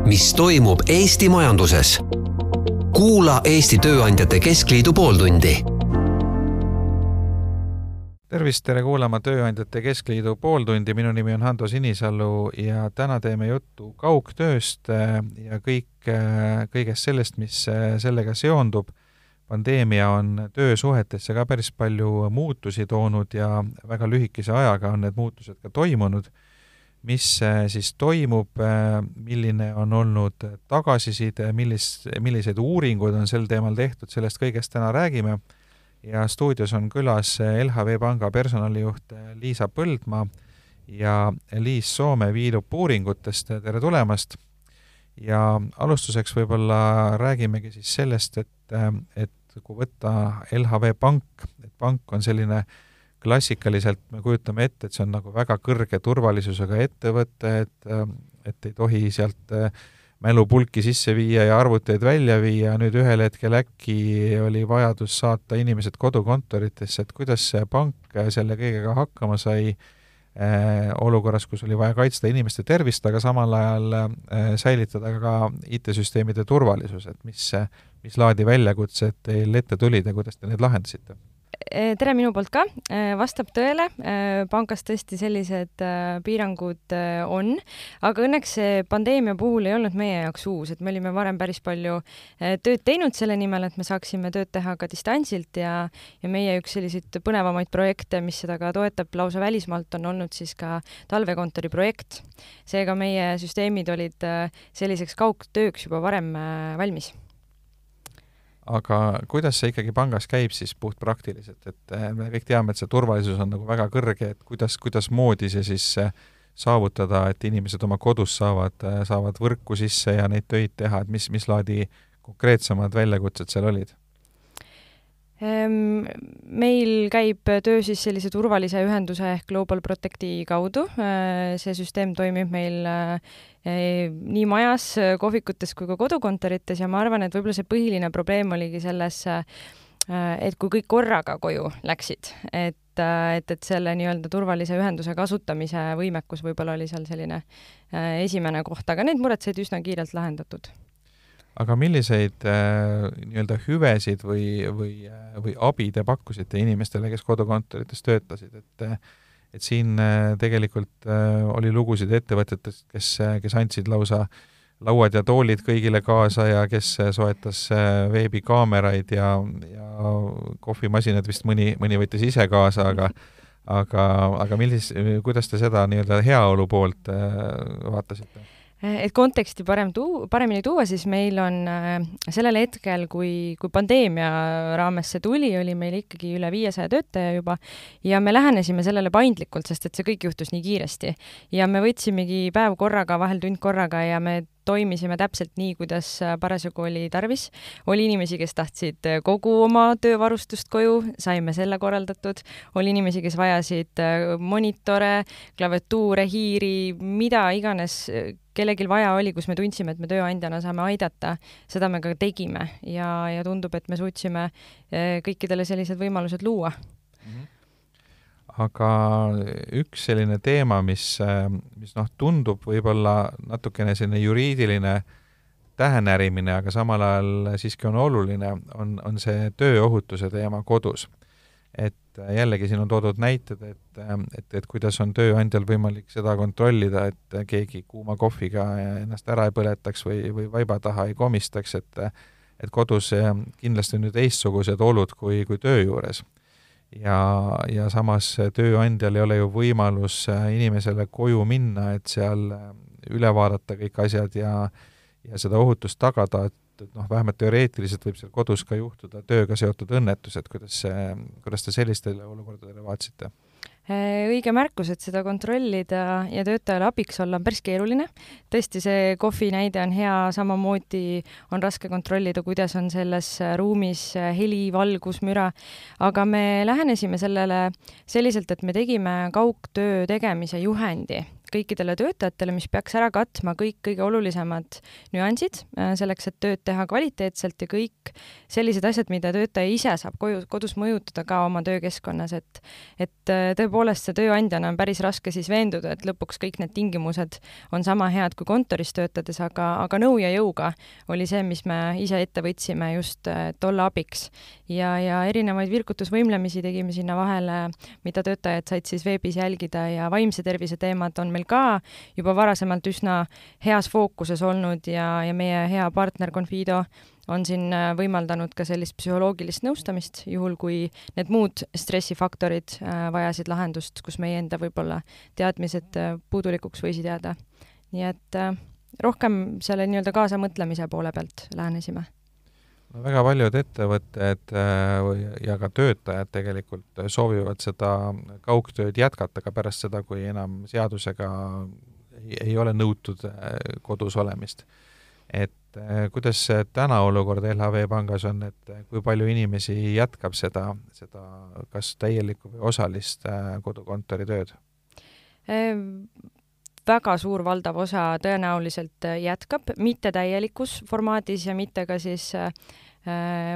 mis toimub Eesti majanduses. Kuula Eesti Tööandjate Keskliidu pooltundi. Tervist, tere kuulama Tööandjate Keskliidu pooltundi. Minu nimi on Hando Sinisalu ja täna teeme juttu kaugtööst ja kõigest sellest, mis sellega seondub. Pandeemia on töösuhetesse ka päris palju muutusi toonud ja väga lühikese ajaga on need muutused ka toimunud. Mis siis toimub, milline on olnud tagasiside, millised uuringud on sel teemal tehtud, sellest kõigest täna räägime. Ja stuudios on külas LHV Panga personalijuht Liisa Põldmaa ja Liis Soome Viilup uuringutest. Tere tulemast! Ja alustuseks võib-olla räägimegi siis sellest, et kui võtta LHV Pank, et pank on selline klassikaliselt, me kujutame ette, et see on nagu väga kõrge turvalisusega ettevõte, et ei tohi sealt mälupulki sisse viia ja arvuteid välja viia. Nüüd ühel hetkel äkki oli vajadus saata inimesed kodukontoritesse, et kuidas see pank selle kõigega hakkama sai olukorras, kus oli vaja kaitsta inimeste tervist, aga samal ajal säilitada ka IT-süsteemide turvalisus, et mis laadi väljakutsed teil ette tulid ja kuidas te need lahendasite? Tere minu poolt ka. Vastab tõele. Pangas tõesti sellised piirangud on, aga õnneks see pandeemia puhul ei olnud meie jaoks uus, et me olime varem päris palju tööd teinud selle nimel, et me saaksime tööd teha ka distantsilt ja meie üks selliseid põnevamaid projekte, mis seda ka toetab lausa välismaalt, on olnud siis ka talvekontori projekt. Seega meie süsteemid olid selliseks kaugtööks juba varem valmis. Aga kuidas see ikkagi pangas käib siis puht praktiliselt, et me kõik teame, et see turvalisus on nagu väga kõrge, et kuidas moodi see siis saavutada, et inimesed oma kodus saavad võrku sisse ja neid töid teha, et mis laadi konkreetsemad väljakutsed seal olid? Meil käib töö siis sellise turvalise ühenduse ehk Global Protecti kaudu. See süsteem toimib meil nii majas, kohvikutes kui ka kodukontorites ja ma arvan, et võib-olla see põhiline probleem oligi selles, et kui kõik korraga koju läksid, et selle nii-öelda turvalise ühenduse kasutamise võimekus võib-olla oli seal selline esimene koht, aga need mured said üsna kiirelt lahendatud. Aga milliseid nii-öelda hüvesid või abi te pakkusite inimestele, kes kodukontorites töötasid? Et siin tegelikult oli lugusid ettevõtetest, kes andsid lausa lauad ja toolid kõigile kaasa ja kes soetas veebikaameraid ja kohvimasinad vist mõni võttis ise kaasa, aga kuidas te seda nii-öelda heaolu poolt vaatasite? Et konteksti paremini tuua, siis meil on sellel hetkel, kui pandeemia raames see tuli, oli meil ikkagi üle 500 töötaja juba ja me lähenesime sellele paindlikult, sest et see kõik juhtus nii kiiresti. Ja me võtsimegi päev korraga, vahel tund korraga ja me toimisime täpselt nii, kuidas parasjagu oli tarvis. Oli inimesi, kes tahtsid kogu oma töövarustust koju, saime selle korraldatud. Oli inimesi, kes vajasid monitore, klaviatuure, hiiri, mida iganes kellegil vaja oli, kus me tundsime, et me tööandjana saame aidata. Seda me ka tegime ja tundub, et me suutsime kõikidele sellised võimalused luua. Aga üks selline teema, mis tundub võib-olla natukene selline juriidiline tähenärimine, aga samal ajal siiski on oluline, on see tööohutuse teema kodus. Et jällegi siin on toodud näited, et kuidas on tööandjal võimalik seda kontrollida, et keegi kuuma kohviga ennast ära ei põletaks või vaiba taha ei komistaks, et kodus kindlasti on nüüd teistsugused olud kui töö juures. Ja samas tööandjal ei ole ju võimalus inimesele koju minna, et seal üle vaadata kõik asjad ja seda ohutust tagada, et vähemalt teoreetiliselt võib seal kodus ka juhtuda tööga seotud õnnetused. Kuidas te sellistele olukordadele vaatsite? Õige märkus, et seda kontrollida ja töötajale abiks olla on päris keeruline. Tõesti, see kohvi näide on hea, samamoodi on raske kontrollida, kuidas on selles ruumis heli, valgus, müra, aga me lähenesime sellele selliselt, et me tegime kaugtöö tegemise juhendi kõikidele töötajatele, mis peaks ära katma kõik kõige olulisemad nüansid selleks, et tööd teha kvaliteetselt ja kõik sellised asjad, mida töötaja ise saab kodus mõjutada ka oma töökeskkonnas, et tõepoolest see tööandjana on päris raske siis veenduda, et lõpuks kõik need tingimused on sama head kui kontoris töötades, aga nõu ja jõuga oli see, mis me ise ette võtsime just, et olla abiks. Ja erinevaid virkutusvõimlemisi tegime sinna vahele, mida töötajad said siis veebis jälgida ja vaimse tervise teemad on meil ka juba varasemalt üsna heas fookuses olnud ja meie hea partner Confido on siin võimaldanud ka sellist psühholoogilist nõustamist, juhul kui need muud stressifaktorid vajasid lahendust, kus meie enda võib-olla teadmised puudulikuks võisid jääda. Nii et rohkem selle nii-öelda kaasamõtlemise poole pealt lähenesime. No, väga paljud ettevõtted ja ka töötajad tegelikult soovivad seda kaugtööd jätkata ka pärast seda, kui enam seadusega ei ole nõutud kodus olemist. Et kuidas täna olukord LHV pangas on, et kui palju inimesi jätkab seda kas täielikku või osalist kodukontori tööd? Väga suur valdav osa tõenäoliselt jätkab, mitte täielikus formaadis ja mitte ka siis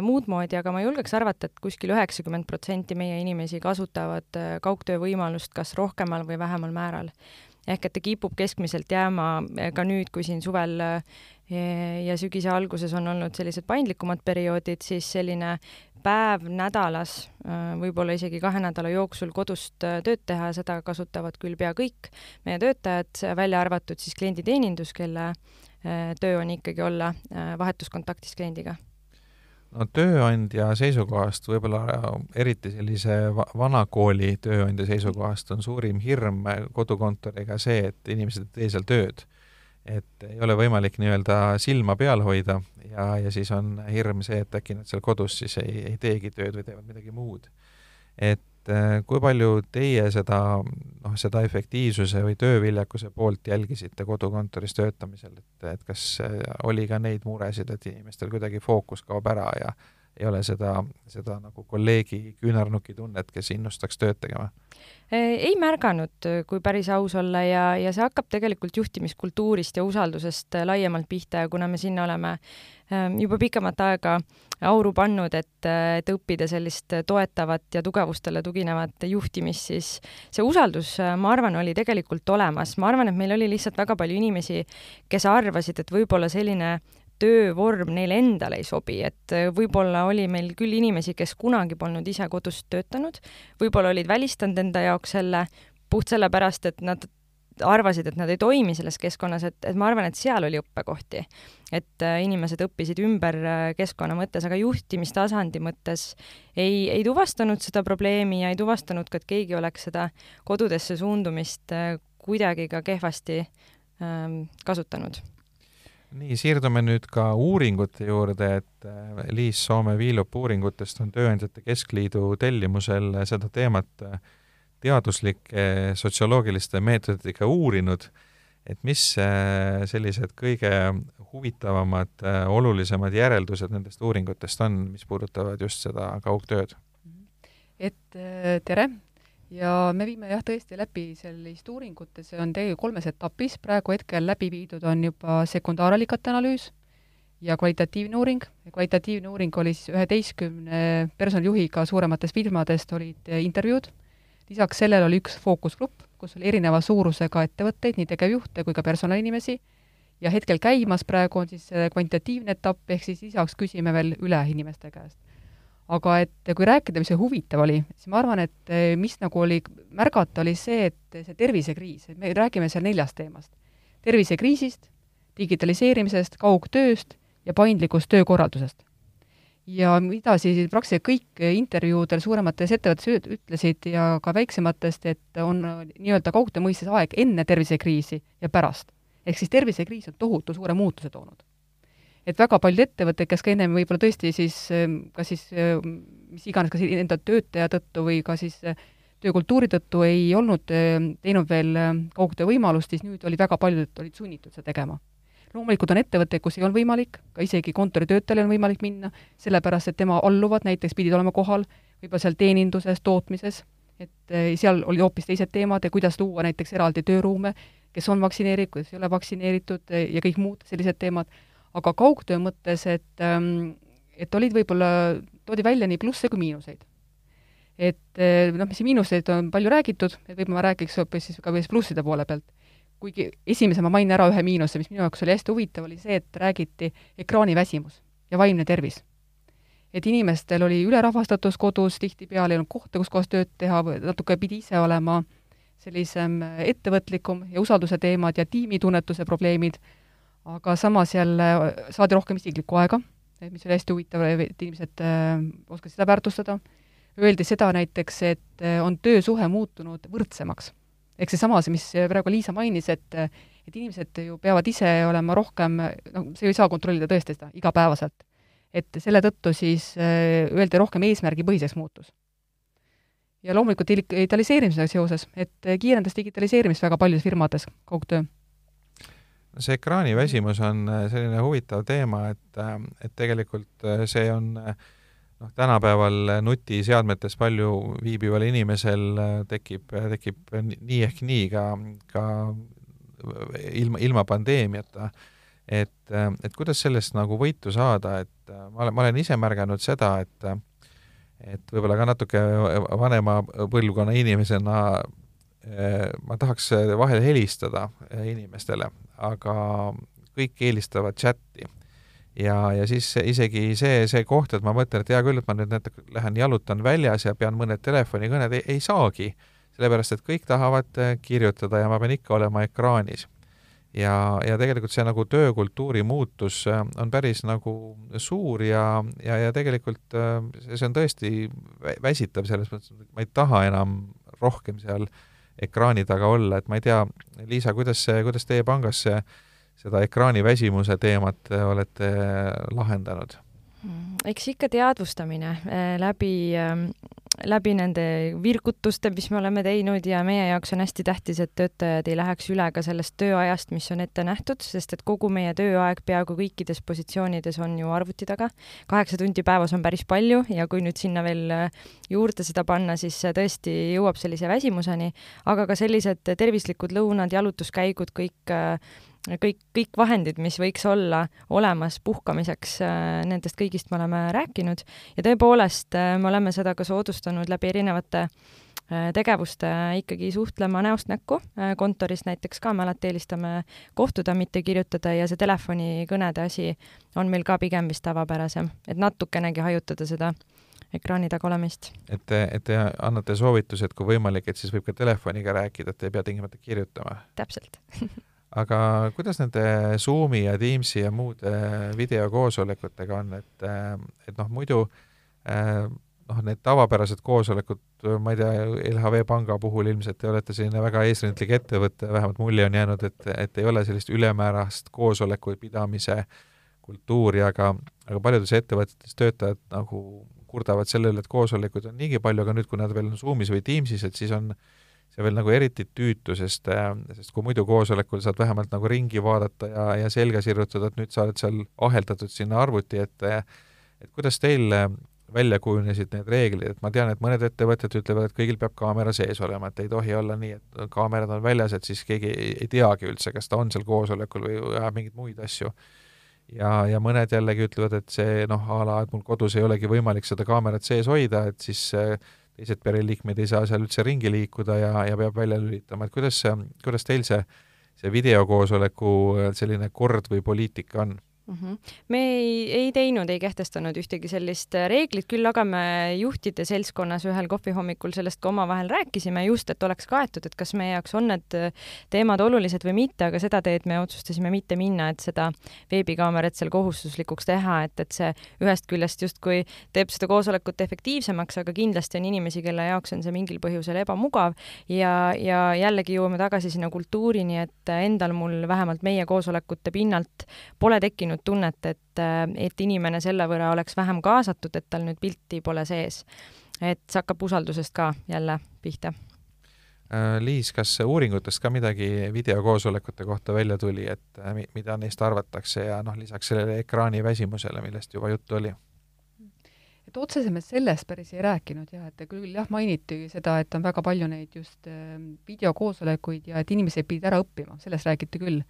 muud moodi, aga ma julgeks arvata, et kuskil 90% meie inimesi kasutavad kaugtöö võimalust kas rohkemal või vähemal määral. Ehk et ta kipub keskmiselt jääma ka nüüd, kui siin suvel ja sügise alguses on olnud sellised paindlikumad perioodid, siis selline päev nädalas, võib-olla isegi 2 nädala jooksul kodust tööd teha, seda kasutavad küll pea kõik meie töötajad, välja arvatud siis klienditeenindus, kelle töö on ikkagi olla vahetuskontaktis kliendiga. No tööandja seisukohast, võib-olla eriti sellise vanakooli tööandja seisukohast on suurim hirm kodukontoriga see, et inimesed ei tee seal tööd. Et ei ole võimalik nii-öelda silma peal hoida ja siis on hirm see, et äkki nad seal kodus siis ei teegi tööd või teevad midagi muud. Et kui palju teie seda efektiivsuse või tööviljakuse poolt jälgisite kodukontoris töötamisel, et kas oli ka neid muresid, et inimestel kuidagi fookus kaob ära ja ei ole seda nagu kolleegi küünarnuki tunnet, kes innustaks tööd tegema? Ei märganud, kui päris aus olla ja see hakkab tegelikult juhtimiskultuurist ja usaldusest laiemalt pihta ja kuna me sinna oleme juba pikemat aega auru pannud, et õppida sellist toetavat ja tugevustele tuginevat juhtimist, siis see usaldus, ma arvan, oli tegelikult olemas. Ma arvan, et meil oli lihtsalt väga palju inimesi, kes arvasid, et võib-olla selline töövorm neile endale ei sobi, et võib-olla oli meil küll inimesi, kes kunagi polnud ise kodust töötanud, võib-olla olid välistanud enda jaoks selle puht sellepärast, et nad arvasid, et nad ei toimi selles keskkonnas, et ma arvan, et seal oli õppekohti, et inimesed õppisid ümber keskkonna mõttes, aga juhtimistasandi mõttes ei tuvastanud seda probleemi ja ei tuvastanud ka, et keegi oleks seda kodudesse suundumist kuidagi ka kehvasti kasutanud. Nii, siirdume nüüd ka uuringute juurde, et Liis Soome Viilup uuringutest on Tööandjate Keskliidu tellimusel seda teemat teaduslike sotsioloogiliste meetoditega uurinud, et mis sellised kõige huvitavamad, olulisemad järeldused nendest uuringutest on, mis puudutavad just seda kaugtööd? Et tere! Ja me viime tõesti läbi sellist uuringut, see on tegelikult 3 etapis, praegu hetkel läbi viidud on juba sekundaaralikate analüüs ja kvalitatiivne uuring. Kvalitatiivne uuring oli siis 11 personalijuhiga suurematest firmadest olid intervjuud. Lisaks sellele oli üks fookusgrupp, kus oli erineva suurusega ettevõtteid, nii tegevjuhte kui ka personalinimesi. Ja hetkel käimas praegu on siis kvantitatiivne etapp, ehk siis lisaks küsime veel üle inimeste käest. Aga et kui rääkida, mis see huvitav oli, siis ma arvan, et mis nagu oli märgata, oli see, et see tervisekriis, et me räägime seal 4 teemast. Tervisekriisist, digitaliseerimisest, kaugtööst ja paindlikust töökorraldusest. Ja mida siis praktiliselt kõik intervjuudel suuremates ettevõttes ütlesid ja ka väiksematest, et on nii-öelda kaugtöö mõistes aeg enne tervisekriisi ja pärast. Ehk siis tervisekriis on tohutu suure muutuse toonud. Et väga paljud ettevõtted, kes ka ennem võib-olla tõesti siis, mis iganes, kas enda töötaja tõttu või ka siis töökultuuri tõttu ei olnud teinud veel kaugtöö võimalust, siis nüüd oli väga paljud, et olid sunnitud seda tegema. Loomulikult on ettevõtteid, kus ei olnud võimalik, ka isegi kontoritöötajal on võimalik minna, sellepärast, et tema alluvad näiteks pidid olema kohal, võib-olla seal teeninduses, tootmises, et seal oli hoopis teised teemad ja kuidas luua näiteks eraldi tööruume, kes on vaktsineeritud, kes ei ole vaktsineeritud ja kõik muud sellised teemad. Aga kaugtöö mõttes, et olid võib-olla, toodi välja nii plusse kui miinuseid. Et mis miinuseid on palju räägitud, et võib-olla ma räägiks hoopis siis ka plusside poole pealt. Kuigi esimese ma mainin ära ühe miinuse, mis minu jaoks oli hästi huvitav, oli see, et räägiti ekraaniväsimus ja vaimne tervis. Et inimestel oli ülerahvastatus kodus, tihtipeale ei olnud kohta, kus kohas tööd teha, natuke pidi ise olema sellisem ettevõtlikum ja usalduse teemad ja tiimitunnetuse probleemid, aga samas jälle saadi rohkem isiklikku aega, mis oli hästi huvitav, et inimesed oskasid seda väärtustada. Öeldi seda näiteks, et on töösuhe muutunud võrdsemaks. Ehk seesama, mis praegu Liisa mainis, et inimesed ju peavad ise olema rohkem, see ei saa kontrollida tõesti seda igapäevaselt. Et selle tõttu siis öeldi rohkem eesmärgipõhiseks muutus. Ja loomulikult digitaliseerimisega seoses, et kiirendas digitaliseerimist väga paljudes firmades kaugtöö. See ekraaniväsimus on selline huvitav teema, et tegelikult see on tänapäeval nutiseadmetes palju viibival inimesel tekib nii ehk nii ka ilma pandeemiata. Et kuidas sellest nagu võitu saada, et ma olen ise märganud seda, et võib-olla ka natuke vanema põlvkonna inimesena ma tahaks vahel helistada inimestele, aga kõik eelistavad chatti. Ja siis isegi see koht, et ma mõtlen, et hea küll, et ma nüüd lähen jalutan väljas ja pean mõned telefonikõned, ei saagi, sellepärast et kõik tahavad kirjutada ja ma pean ikka olema ekraanis. Ja tegelikult see nagu töökultuuri muutus on päris nagu suur ja tegelikult see on tõesti väsitav selles mõttes, et ma ei taha enam rohkem seal ekraani taga olla, et ma ei tea, Liisa, kuidas teie pangas seda ekraaniväsimuse teemat olete lahendanud? Eks ikka teadvustamine läbi nende virgutuste, mis me oleme teinud ja meie jaoks on hästi tähtis, et töötajad ei läheks üle ka sellest tööajast, mis on ette nähtud, sest et kogu meie tööaeg peaaegu kõikides positsioonides on ju arvuti taga. 8 tundi päevas on päris palju ja kui nüüd sinna veel juurde seda panna, siis tõesti jõuab sellise väsimuseni, aga ka sellised tervislikud lõunad, jalutuskäigud, kõik vahendid, mis võiks olla olemas puhkamiseks, nendest kõigist me oleme rääkinud ja tõepoolest me oleme seda ka soodustanud läbi erinevate tegevuste ikkagi suhtlema näost näkku. Kontoris näiteks ka me alati eelistame kohtuda, mitte kirjutada ja see telefonikõnede asi on meil ka pigem vist tavapärasem, et natukenegi hajutada seda ekraani taga olemist. Et te annate soovituse, et kui võimalik, et siis võib ka telefoniga rääkida, et ei pea tingimata kirjutama. Täpselt. Aga kuidas nende Zoomi ja Teamsi ja muude videokoosolekutega on, et muidu need tavapärased koosolekud, ma ei tea, LHV Panga puhul ilmselt te olete selline väga eesrindlik ettevõte, vähemalt mulje on jäänud, et ei ole sellist ülemäärast koosoleku pidamise kultuuri, aga paljudes ettevõtetes töötajad nagu kurdavad sellele, et koosolekuid on niigi palju, aga nüüd, kui nad veel on Zoomis või Teamsis, et siis on see veel nagu eriti tüütu, sest kui muidu koosolekul saad vähemalt nagu ringi vaadata ja selga sirrutada, et nüüd sa oled seal aheldatud sinna arvuti, et kuidas teil välja kujunesid need reeglid, et ma tean, et mõned ettevõtted ütlevad, et kõigil peab kaamera sees olema, et ei tohi olla nii, et kaamerad on väljas, et siis keegi ei teagi üldse, kas ta on seal koosolekul või ajab mingeid muid asju. Ja mõned jällegi ütlevad, et see et mul kodus ei olegi võimalik seda kaamerat sees hoida, et siis teised pereliikmed ei saa seal üldse ringi liikuda ja peab välja lülitama, et kuidas teil see videokoosoleku selline kord või poliitika on? Me ei teinud, ei kehtestanud ühtegi sellist reeglit, küll aga me juhtide seltskonnas ühel kohvihommikul sellest ka omavahel rääkisime just, et oleks kaetud, et kas meie jaoks on need teemad olulised või mitte, aga seda teed me otsustasime mitte minna, et seda veebikaamerat seal kohustuslikuks teha, et see ühest küljest justkui teeb seda koosolekut efektiivsemaks, aga kindlasti on inimesi, kelle jaoks on see mingil põhjusel ebamugav ja jällegi jõuame tagasi sinna kultuurini, et endal mul vähemalt meie koosolekute pinnalt pole tekkinud tunnet, et inimene selle võrra oleks vähem kaasatud, et tal nüüd pilti pole sees. Et see hakkab usaldusest ka jälle pihta. Liis, kas uuringutest ka midagi videokoosolekute kohta välja tuli, et mida neist arvatakse ja lisaks sellele ekraani väsimusele, millest juba juttu oli? et otsesemalt sellest päris ei rääkinud jah, et küll jah, mainiti seda, et on väga palju neid just videokoosolekuid ja et inimesed pidid ära õppima, sellest räägiti küll.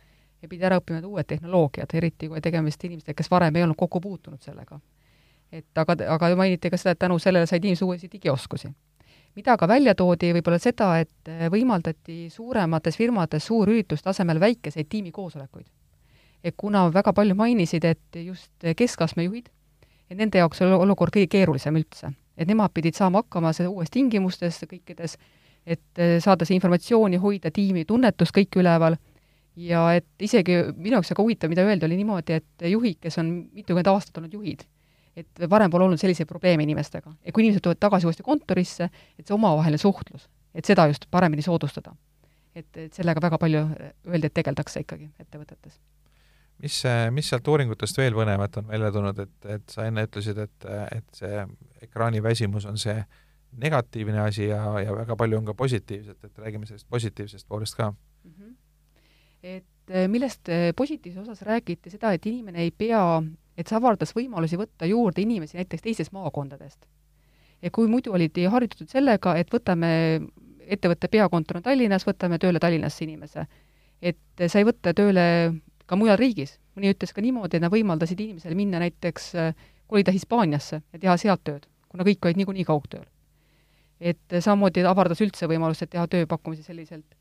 Ja pidi ära õppima uued tehnoloogiad, eriti kui tegemist inimestega, kes varem ei olnud kokku puutunud sellega. Et aga mainiti ka seda, et tänu sellele said inimesed uusi digioskusi. Mida ka välja toodi võib-olla seda, et võimaldati suuremates firmades suurürituste asemel väikeseid tiimikoosolekuid. Et kuna väga palju mainisid, et just keskastme juhid, et nende jaoks oli olukord kõige keerulisem üldse. Et nemad pidid saama hakkama seda uues tingimustes kõikides, et saada see informatsiooni, hoida tiimi tunnetust kõik üleval. Ja et isegi minu jaoks väga huvitav, mida öeldi, oli niimoodi, et juhid, kes on mitukümmend aastat olnud juhid, et varem pole olnud selliseid probleeme inimestega. Ja kui inimesed tulevad tagasi uuesti kontorisse, et see omavaheline suhtlus, et seda just paremini soodustada. Et sellega väga palju öeldi, et tegeldakse ikkagi ettevõtetes. Mis sealt uuringutest veel põnevat on välja tulnud, et sa enne ütlesid, et see ekraaniväsimus on see negatiivne asi ja väga palju on ka positiivset, et räägime sellest positiivsest poolest ka. Et millest positiivse osas räägiti seda, et inimene ei pea, et see avardas võimalusi võtta juurde inimesi näiteks teistest maakondadest. Ja kui muidu olid harjutatud sellega, et võtame ettevõtte peakontor on Tallinnas, võtame tööle Tallinnasse inimese. Et sai võtta tööle ka mujal riigis. Mõni ütles ka niimoodi, et nad võimaldasid inimesele minna näiteks kolida Hispaaniasse ja teha sealt tööd, kuna kõik olid niikuinii kaugtööl. Et samamoodi avardas üldse võimalust, et teha tööpakkumisi selliselt.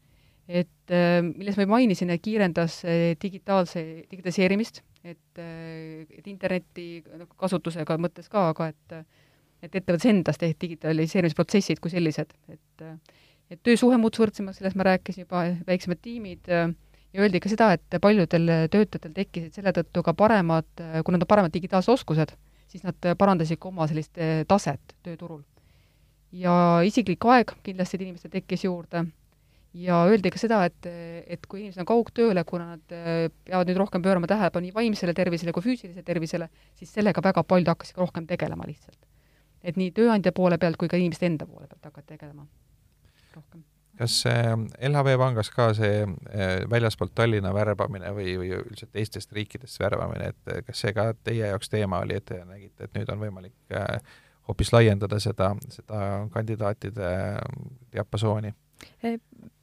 Et milles ma mainisin, et kiirendas digitaliseerimist, et interneti kasutusega mõttes ka, aga et ettevõttes endast ehk digitaliseerimisprotsessid kui sellised. Et töösuhe muutus võrdsemaks, sellest ma rääkisin juba, väiksemad tiimid ja öeldi ka seda, et paljudel töötajatel tekkisid selle tõttu ka paremad, kui nad on paremad digitaalsed oskused, siis nad parandasid ka oma sellist taset tööturul. Ja isiklik aeg kindlasti inimestel tekkis juurde. Ja öeldi ka seda, et kui inimesed on kaugtööle, kuna nad peavad nüüd rohkem pöörama tähelepanu nii vaimsele tervisele kui füüsilisele tervisele, siis sellega väga paljud hakkasid rohkem tegelema lihtsalt. Et nii tööandja poole pealt kui ka inimeste enda poole pealt hakkavad tegelema rohkem. Kas LHV Pangas ka see väljaspoolt Tallinna värbamine või üldiselt teistest riikidest värbamine, et kas see ka teie jaoks teema oli, et te nägite, et nüüd on võimalik hoopis laiendada seda kandidaatide diapasooni?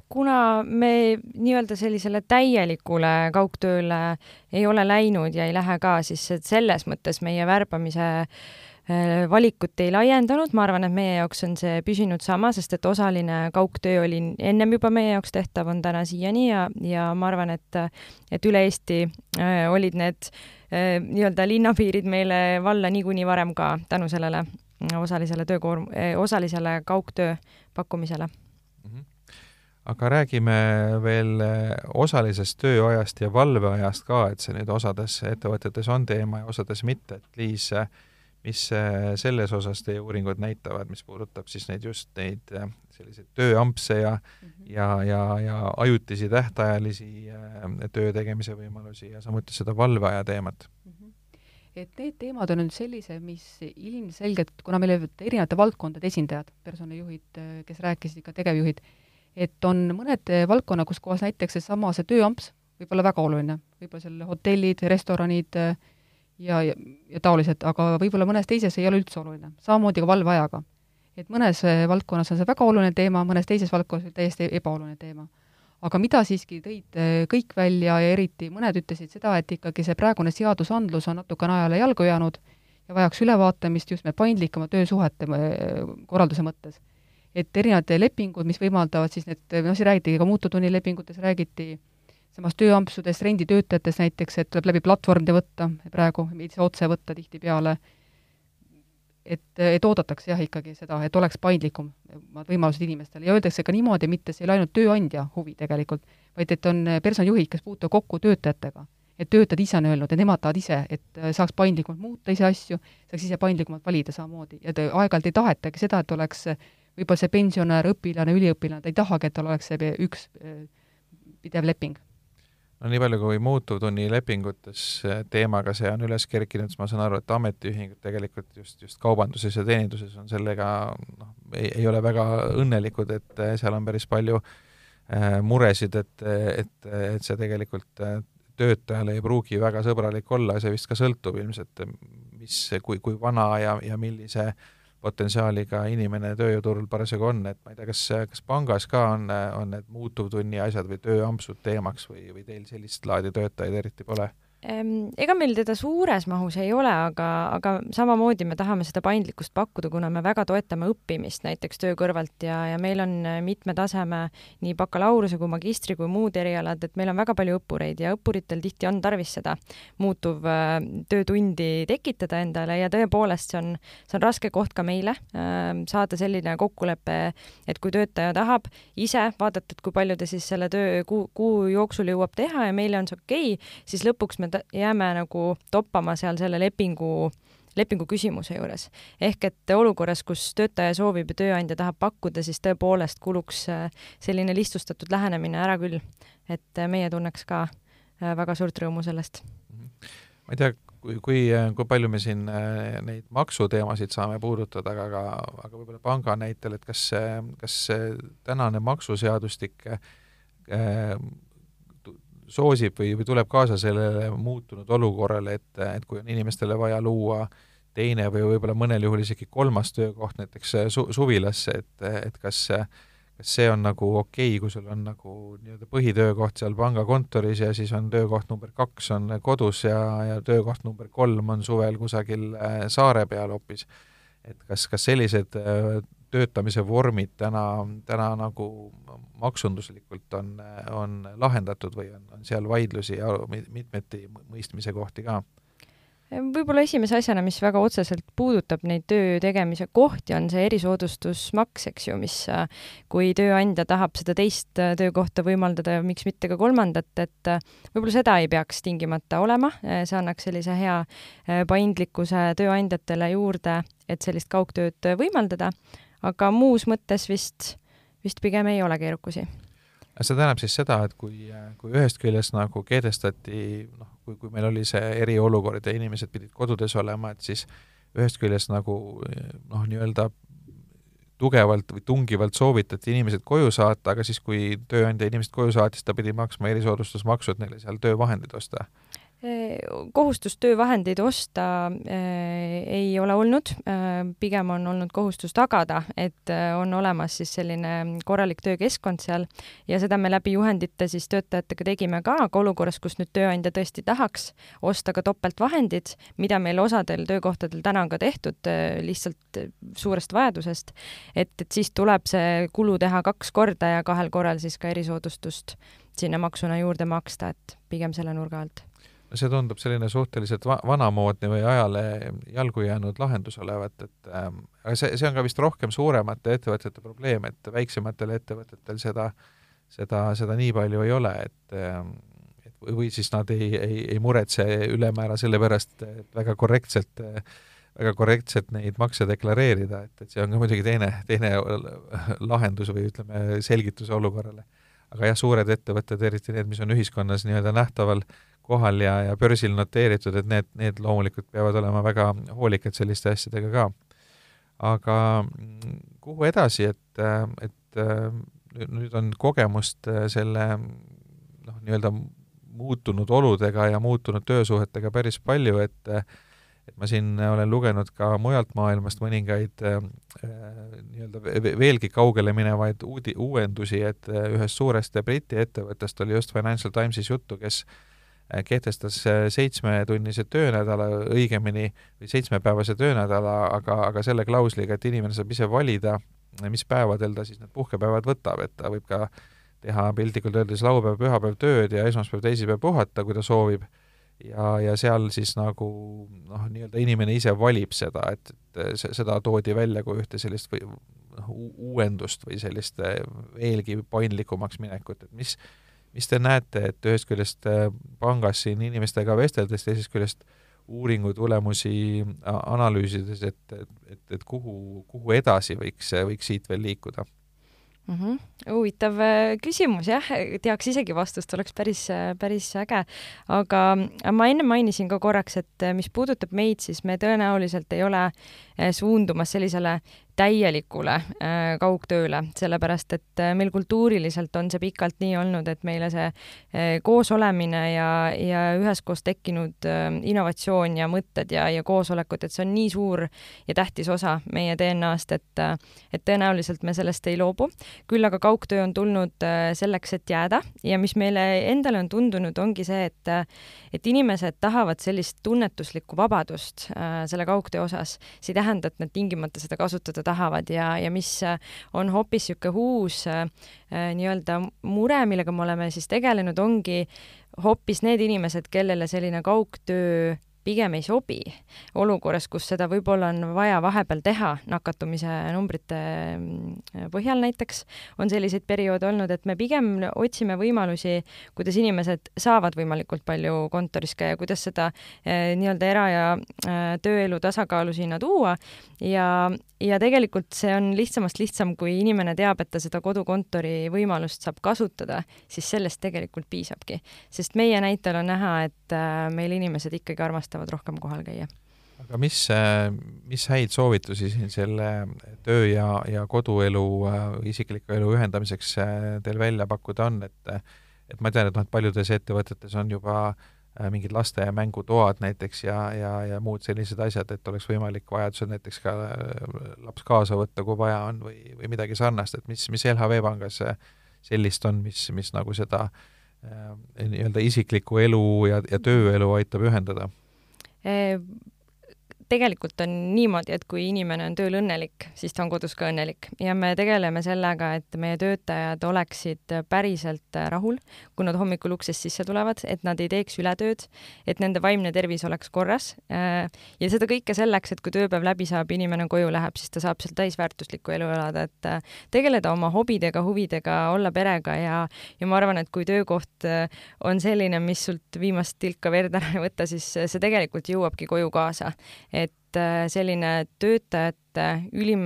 Kuna me nii-öelda sellisele täielikule kaugtööle ei ole läinud ja ei lähe ka, siis selles mõttes meie värbamise valikut ei laiendanud. Ma arvan, et meie jaoks on see püsinud sama, sest et osaline kaugtöö oli ennem juba meie jaoks tehtav, on täna siiani ja ma arvan, et üle Eesti olid need nii-öelda linnapiirid meile valla niikuinii varem ka tänu sellele osalisele kaugtöö pakkumisele. Aga räägime veel osalisest tööajast ja valveajast ka, et see nüüd osades ettevõtetes on teema ja osades mitte, et Liis, mis selles osas teie uuringud näitavad, mis puudutab siis neid selliseid tööampse ja ajutisi tähtajalisi töö tegemise võimalusi ja samuti seda valveaja teemat? Et need teemad on nüüd sellise, mis ilmselgelt, kuna meil olid erinevate valdkondade esindajad, personalijuhid, kes rääkisid ka tegevjuhid, et on mõned valdkonna, kus kohas näiteks see tööamps võib olla väga oluline, võib-olla seal hotellid, restoranid ja taolised, aga võib-olla mõnes teises ei ole üldse oluline, samamoodi ka valveajaga. Et mõnes valdkonnas on see väga oluline teema, mõnes teises valdkonnas täiesti ebaoluline teema. Aga mida siiski tõid kõik välja ja eriti mõned ütlesid seda, et ikkagi see praegune seadusandlus on natukene ajale jalgu jäänud ja vajaks ülevaatamist just me paindlikama töösuhete korralduse mõttes. Et erinevad lepingud, mis võimaldavad siis need, siin räägiti ka muututunnilepingutes, räägiti samas tööampsudest, renditöötajatest näiteks, et tuleb läbi platvormide võtta praegu, mitte otse võtta tihti peale, et oodatakse jah ikkagi seda, et oleks paindlikum võimalused inimestele ja öeldakse ka niimoodi, mitte see ei ole ainult tööandja huvi tegelikult, vaid et on personalijuhid, kes puutuvad kokku töötajatega, et töötajad ise on öelnud, et nemad tahavad ise, et saaks paindlikumalt muuta ise asju, saaks ise paindlikumalt valida samamoodi ja aeg-ajalt ei tahetagi seda, et oleks võib-olla see pensionär, õpilane, üliõpilane, ta ei tahagi, et tal oleks see üks pidev leping. No nii palju kui muututunnilepingutes teemaga see on üles kerkinud, siis ma saan aru, et ametiühingud tegelikult just kaubanduses ja teeninduses on sellega, ei ole väga õnnelikud, et seal on päris palju muresid, et see tegelikult töötajale ei pruugi väga sõbralik olla ja see vist ka sõltub ilmselt, kui vana ja millise potentsiaaliga inimene tööjõuturul parasjagu on, et ma ei tea, kas pangas ka on need muutuvtunni asjad või tööampsud teemaks või teil sellist laadi töötajaid eriti pole? Ega meil teda suures mahus ei ole, aga samamoodi me tahame seda paindlikkust pakkuda, kuna me väga toetame õppimist näiteks töö kõrvalt ja meil on mitme taseme nii bakalaureuse kui magistri kui muud erialad, et meil on väga palju õppureid ja õppuritel tihti on tarvis seda muutuv töötundi tekitada endale ja tõepoolest see on raske koht ka meile saada selline kokkulepe, et kui töötaja tahab ise vaadata, et kui palju ta siis selle töö kuu jooksul jõuab teha ja meile on see okei, siis lõpuks me jääme nagu toppama seal selle lepingu küsimuse juures. Ehk et olukorras, kus töötaja soovib ja tööandja tahab pakkuda, siis tõepoolest kuluks selline lihtsustatud lähenemine ära küll, et meie tunneks ka väga suurt rõõmu sellest. Ma ei tea, kui palju me siin neid maksuteemasid saame puudutada, aga võib-olla panga näitel, et kas tänane maksuseadustik soosib või tuleb kaasa sellele muutunud olukorrale, et kui on inimestele vaja luua teine või võib-olla mõnel juhul isegi kolmas töökoht näiteks suvilasse, et kas see on nagu okei, kui sul on nagu nii-öelda põhitöökoht seal pangakontoris ja siis on töökoht number 2 on kodus ja töökoht number 3 on suvel kusagil saare peal hoopis. Et kas sellised töötamise vormid täna nagu maksunduslikult on lahendatud või on seal vaidlusi ja mitmeti mõistmise kohti ka? Võib-olla esimese asjana, mis väga otseselt puudutab neid töö tegemise kohti, on see erisoodustusmaks, eks ju, mis kui tööandja tahab seda teist töökohta võimaldada ja miks mitte ka kolmandat, et võib-olla seda ei peaks tingimata olema, see annaks sellise hea paindlikkuse tööandjatele juurde, et sellist kaugtööd võimaldada, aga muus mõttes vist pigem ei ole keerukusi. See tähendab siis seda, et kui ühest küljest nagu keedestati, kui meil oli see eriolukord ja inimesed pidid kodudes olema, et siis ühest küljest nagu nii-öelda tugevalt või tungivalt soovitati inimesed koju saata, aga siis kui tööandja inimesed koju saatis, ta pidi maksma erisoodustusmaksu, et neile seal töövahendid osta. Kohustust töövahendeid osta ei ole olnud, pigem on olnud kohustus tagada, et on olemas siis selline korralik töökeskkond seal ja seda me läbi juhendite siis töötajatega tegime ka, aga olukorras, kus nüüd tööandja tõesti tahaks osta ka topeltvahendid, mida meil osadel töökohtadel täna on ka tehtud lihtsalt suurest vajadusest, et siis tuleb see kulu teha 2 korda ja 2 korral siis ka erisoodustust sinna maksuna juurde maksta, et pigem selle nurga alt. See tundub selline suhteliselt vanamoodne või ajale jalgu jäänud lahendus olevat, et see on ka vist rohkem suuremate ettevõtete probleem, et väiksematel ettevõtetel seda nii palju ei ole, et või siis nad ei muretse ülemäära selle pärast, et väga korrektselt neid makse deklareerida, et see on ka muidugi teine lahendus või ütleme selgitus olukorrale. Aga jah, suured ettevõtted, eriti need, mis on ühiskonnas nii-öelda nähtaval kohal ja börsil noteeritud, et need loomulikult peavad olema väga hoolikad selliste asjadega ka. Aga kuhu edasi, et nüüd on kogemust selle nii-öelda muutunud oludega ja muutunud töösuhetega päris palju, et ma siin olen lugenud ka mujalt maailmast mõningaid nii-öelda veelgi kaugele minevaid uuendusi, et ühest suurest Briti ettevõttest oli just Financial Timesis juttu, kes kehtestas 7-tunnise töönädala, õigemini 7-päevase töönädala, aga selle klausliga, et inimene saab ise valida, mis päevadel ta siis need puhkepäevad võtab, et ta võib ka teha piltlikult öeldes laupäev, pühapäev tööd ja esmaspäev, teisipäev puhata, kui ta soovib. Ja seal siis nagu nii-öelda inimene ise valib seda, et seda toodi välja kui ühte sellist uuendust või sellist veelgi paindlikumaks minekut, et mis te näete, et ühest küljest pangas siin inimestega vesteldes, teisest küljest uuringu tulemusi analüüsides, et kuhu edasi võiks siit veel liikuda? Huvitav küsimus, jah, teaks isegi vastust, oleks päris äge, aga ma enne mainisin ka korraks, et mis puudutab meid, siis me tõenäoliselt ei ole suundumas sellisele täielikule kaugtööle, sellepärast et meil kultuuriliselt on see pikalt nii olnud, et meile see koos olemine ja üheskoos tekkinud innovatsioon ja mõtted ja koosolekud, et see on nii suur ja tähtis osa meie DNA-st, et tõenäoliselt me sellest ei loobu. Küll aga kaugtöö on tulnud selleks, et jääda ja mis meile endale on tundunud, ongi see, et inimesed tahavad sellist tunnetuslikku vabadust selle kaugtöö osas. See ei tähenda, et nad tingimata seda kasutada tahavad ja mis on hoopis siuke uus nii-öelda mure, millega me oleme siis tegelenud, ongi hoopis need inimesed, kellele selline kaugtöö pigem ei sobi olukorras, kus seda võib-olla on vaja vahepeal teha nakatumise numbrite põhjal näiteks, on selliseid perioode olnud, et me pigem otsime võimalusi, kuidas inimesed saavad võimalikult palju kontoris käia, kuidas seda nii-öelda era- ja tööelu tasakaalu sinna tuua ja tegelikult see on lihtsamast lihtsam, kui inimene teab, et ta seda kodukontori võimalust saab kasutada, siis sellest tegelikult piisabki. Sest meie näitel on näha, et meil inimesed ikkagi armastavad rohkem kohal käia. Aga mis häid soovitusi siin selle töö ja koduelu, isikliku elu ühendamiseks teil välja pakkuda on, et ma tean, et paljudes ettevõtetes on juba mingid laste ja mängutoad näiteks ja muud sellised asjad, et oleks võimalik vajadusel näiteks ka laps kaasa võtta, kui vaja on või midagi sarnast, et mis LHV Pangas sellist on, mis nagu seda nii-öelda isikliku elu ja tööelu aitab ühendada? Tegelikult on niimoodi, et kui inimene on tööl õnnelik, siis ta on kodus ka õnnelik ja me tegeleme sellega, et meie töötajad oleksid päriselt rahul, kui nad hommikul uksest sisse tulevad, et nad ei teeks ületööd, et nende vaimne tervis oleks korras ja seda kõike selleks, et kui tööpäev läbi saab, inimene koju läheb, siis ta saab seal täisväärtuslikku elu elada, et tegeleda oma hobidega, huvidega, olla perega ja ma arvan, et kui töökoht on selline, mis sult viimast tilka verd ära ei võtta, siis see tegelikult jõuabki koju kaasa. Et selline töötajate ülim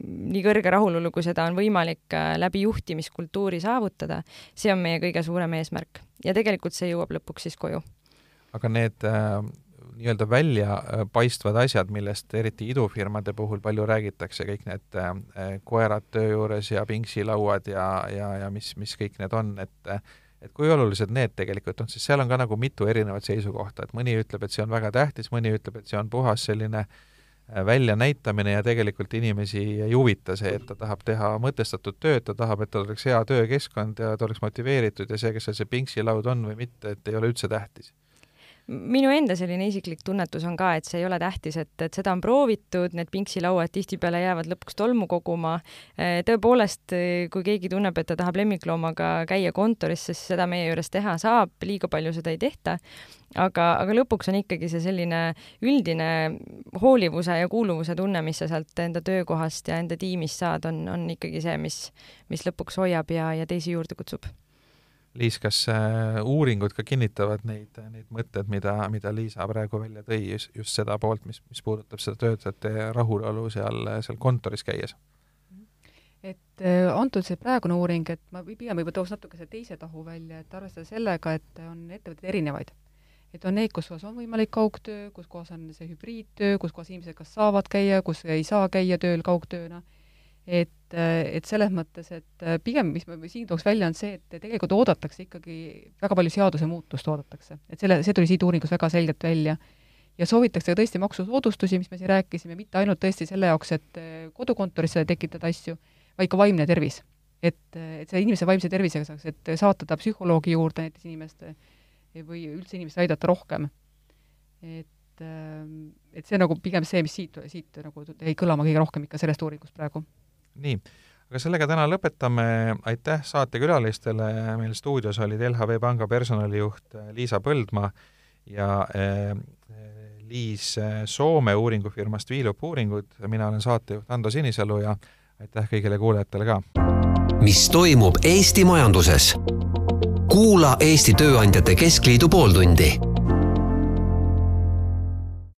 nii kõrge rahulolu, kui seda on võimalik läbi juhtimiskultuuri saavutada, see on meie kõige suurem eesmärk. Ja tegelikult see jõuab lõpuks siis koju. Aga need nii-öelda välja paistvad asjad, millest eriti idufirmade puhul palju räägitakse, kõik need koerad töö juures ja pingsilauad ja mis kõik need on, et kui olulised need tegelikult on, siis seal on ka nagu mitu erinevat seisukohta, et mõni ütleb, et see on väga tähtis, mõni ütleb, et see on puhas selline väljanäitamine ja tegelikult inimesi ei huvita see, et ta tahab teha mõtestatud tööd, ta tahab, et ta oleks hea töökeskkond ja ta oleks motiveeritud ja see, kes see pingsilaud on või mitte, et ei ole üldse tähtis. Minu enda selline isiklik tunnetus on ka, et see ei ole tähtis, et seda on proovitud, need pingsilauad tihtipeale jäävad lõpuks tolmu koguma. Tõepoolest, kui keegi tunneb, et ta tahab lemmikloomaga käia kontoris, siis seda meie juures teha saab, liiga palju seda ei tehta. Aga lõpuks on ikkagi see selline üldine hoolivuse ja kuuluvuse tunne, mis sa sealt enda töökohast ja enda tiimist saad, on ikkagi see, mis lõpuks hoiab ja teisi juurde kutsub. Liis, kas uuringud ka kinnitavad neid mõtted, mida Liisa praegu välja tõi, just seda poolt, mis puudutab seda töötajate rahulolu seal kontoris käies? Et antud see praegune uuring, et ma pigem võib toos natuke see teise tahu välja, et arvestada sellega, et on ettevõtted erinevaid. Et on neid, kus on võimalik kaugtöö, kus kohas on see hübriidtöö, kus kohas inimesed kas saavad käia, kus ei saa käia tööl kaugtööna. Et selles mõttes, et pigem, mis me siin tooks välja, on see, et tegelikult oodatakse ikkagi väga palju seaduse muutust oodatakse. Et see tuli siit uuringus väga selgelt välja. Ja soovitakse tõesti maksusoodustusi, mis me siin rääkisime, mitte ainult tõesti selle jaoks, et kodukontorisse tekitada asju, vaid ka vaimne tervis. Et see inimese vaimse tervisega saaks, et saata ta psühholoogi juurde näiteks inimeste või üldse inimest aidata rohkem. Et see nagu pigem see, mis siit nagu jäi kõlama kõige rohkem ikka sellest uuringust praegu. Nii, aga sellega täna lõpetame. Aitäh saatekülalistele. Meil stuudios olid LHV Panga personalijuht Liisa Põldmaa ja Liis Soome uuringufirmast Viilup uuringud. Mina olen saatejuht Ando Sinisalu ja aitäh kõigile kuulajatele ka. Mis toimub Eesti majanduses? Kuula Eesti Tööandjate Keskliidu pooltundi.